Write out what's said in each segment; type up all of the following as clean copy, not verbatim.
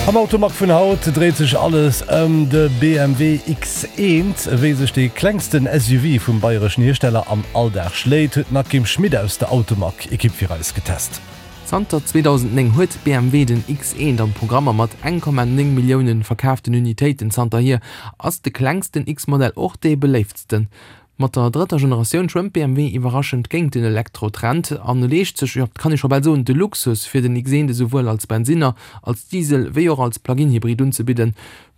Am Automag vun haut dréit sech alles ëm de BMW X1. Wéi sech dee klengsten SUV vum bayreschen Hiersteller am Alldag schléit, huet d'Nakim Schmit aus der Automag-Ekipp fir eis getest. Zanter 2009 huet BMW den X1 am Programm a mat 1,9 Millioune verkaaften Unitéiten zanterhier ass de klengsten X-Modell och dee beléiftsten. Mat der drëtter Generatioun schwëmmt BMW iwwerraschend géint den Elektro-Trend an leescht sech, jo, et kann ee scho bal soen, de Luxus, fir den X1 esouwuel als Bensinner, als Diesel wéi och als Plug-in-Hybrid unzebidden.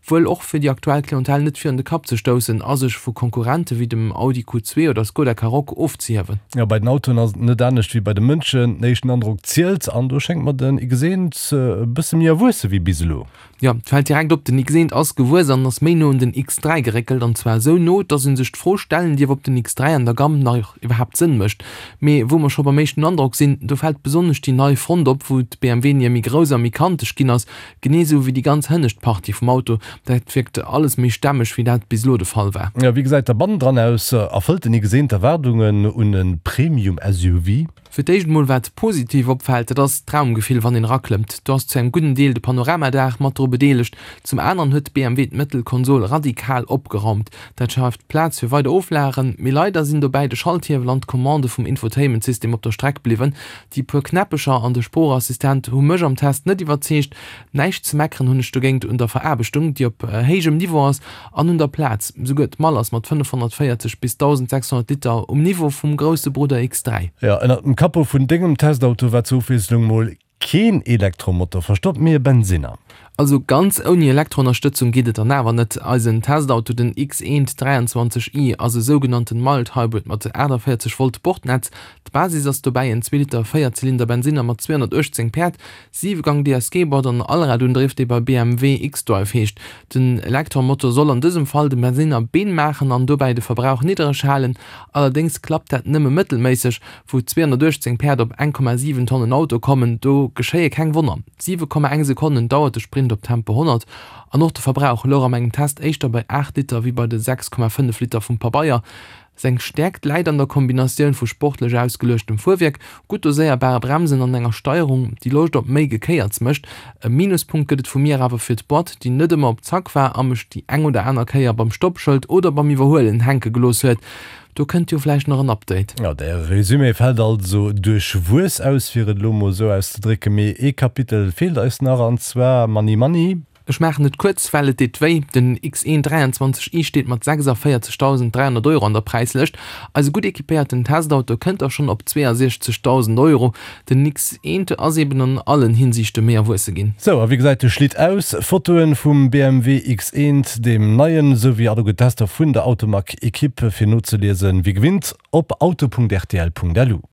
Wuel och fir déi aktuell Clientèle net virun de Kapp ze stoussen a sech vu Konkurrente wéi dem Audi Q2 oder Skoda Karoq ofzehiewen. Jo, bei den Autoen ass et net anescht wéi bei de Mënschen, den éischten Androck zielt an do schéngt mer den X1 e bësse méi erwuesse wéi bis elo. Jo, et fält direkt op, den X1 ass gewuess an ass méi no un den X3 geréckelt, an zwar esou no, dass een sech d'Fro stellen dierf, ob den X3 an der Gamm nach iwwerhaapt Sënn mécht. Mee wou mer scho beim éischten Androck sinn, do fält besonnesch déi nei Front op, wou d'BMW-Nier méi grouss a méi kanteg ginn ass, genee esou wéi déi ganz hënnescht Partie vum Auto. Dat wierkt alles méi stämmeg, wéi dat bis elo de Fall war. Jo, wéi gesäit da bannendran aus? Erfëllt den X1 d'Erwaardungen un e Premium-SUV? Fir d'éischt emol wat positiv opfält, dat ass d'Raumgefill wann een eraklëmmt. Do ass zu engem gudden Deel de Panoramadaach mat dru bedeelegt. Zum aneren huet BMW d'Mëttelkonsol radikal opgeraumt. Dat schaaft Plaz fir weider Oflagen, mee leider sinn dobäi de Schalthiewel an d'Commande vum Infotainment-System op der Streck bliwwen. Déi puer Knäppecher an de Sproochassistent hu mech am Test net iwwerzeegt. Näischt ze meckeren hunn ech dogéint un der Veraarbechtung, déi op héijem Niveau ass An un der Plaz, souguer d'Mall ass mat 540 bis 1.600 Liter um Niveau vum grousse Brudder X3. Jo, ënnert dem Capot vun dengem Testauto war zur Ofwiesslung mol keen Elektromotor verstoppt, mee e Bensinner. Also ganz ouni Elektroënnerstëtzung geet et dann awer net. Eisen Testauto, den X1 23 i, ass e sougenannten Mild Hybrid mat 48 Volt Bordnetz. D'Basis ass dobäi en zwee Liter Véierzylinder Bensinner mat 218 Päerd, Siwegang DSG-Boîte an Allradundriff, dee bei BMW xDrive heescht. Den Elektromotor soll an dësem Fall dem Bensinner Been maachen an dobäi de Verbrauch niddereg halen. Allerdéngs klappt dat nëmme mëttelméisseg. Wou 218 Päerd op 1,7 Tonnen Auto kommen, do geschéie keng Wonner. 7,1 Sekonnen dauert de Sprint op Tempo 100 an och de Verbrauch louch a mengem Test éischter bei 8 Liter wéi bei de 6,5 Liter vum Pabeier. Seng Stäerkt läit an der Kombinatioun vu sportlech ausgeluechtem Fuerwierk, gutt doséierbare Bremsen an enger Steierung, déi Loscht op méi Gekéierts mécht. E Minuspunkt gëtt et vu mir awer fir d'Boîte, déi net ëmmer op Zack war a mech déi eng oder aner Kéier beim Stoppschëld oder beim Iwwerhuelen hänke gelooss huet. Do kënnt jo vläicht nach en Update. Jo, däi Résumé fält also duerchwuess aus, fir et elo mol esou auszedrécken. Mee ee Kapitel feelt eis nach, an zwar Money Money. Ech maachen et kuerz, well et deet wéi, Den X1 23 i steet mat 46.300 Euro an der Präislëscht. Eise gutt equipéierten Testauto kënnt da schonn op 62.000 Euro. Den X1 ass eben an allen Hinsiichte méi erwuesse ginn. Sou, a wéi gesäit de Schlitt aus? Fotoen vum BMW X1, deem neien, sou wéi alleguer d'Tester vun der Automag-Equipe fir nozeliesen, wéi gewinnt op auto.rtl.lu.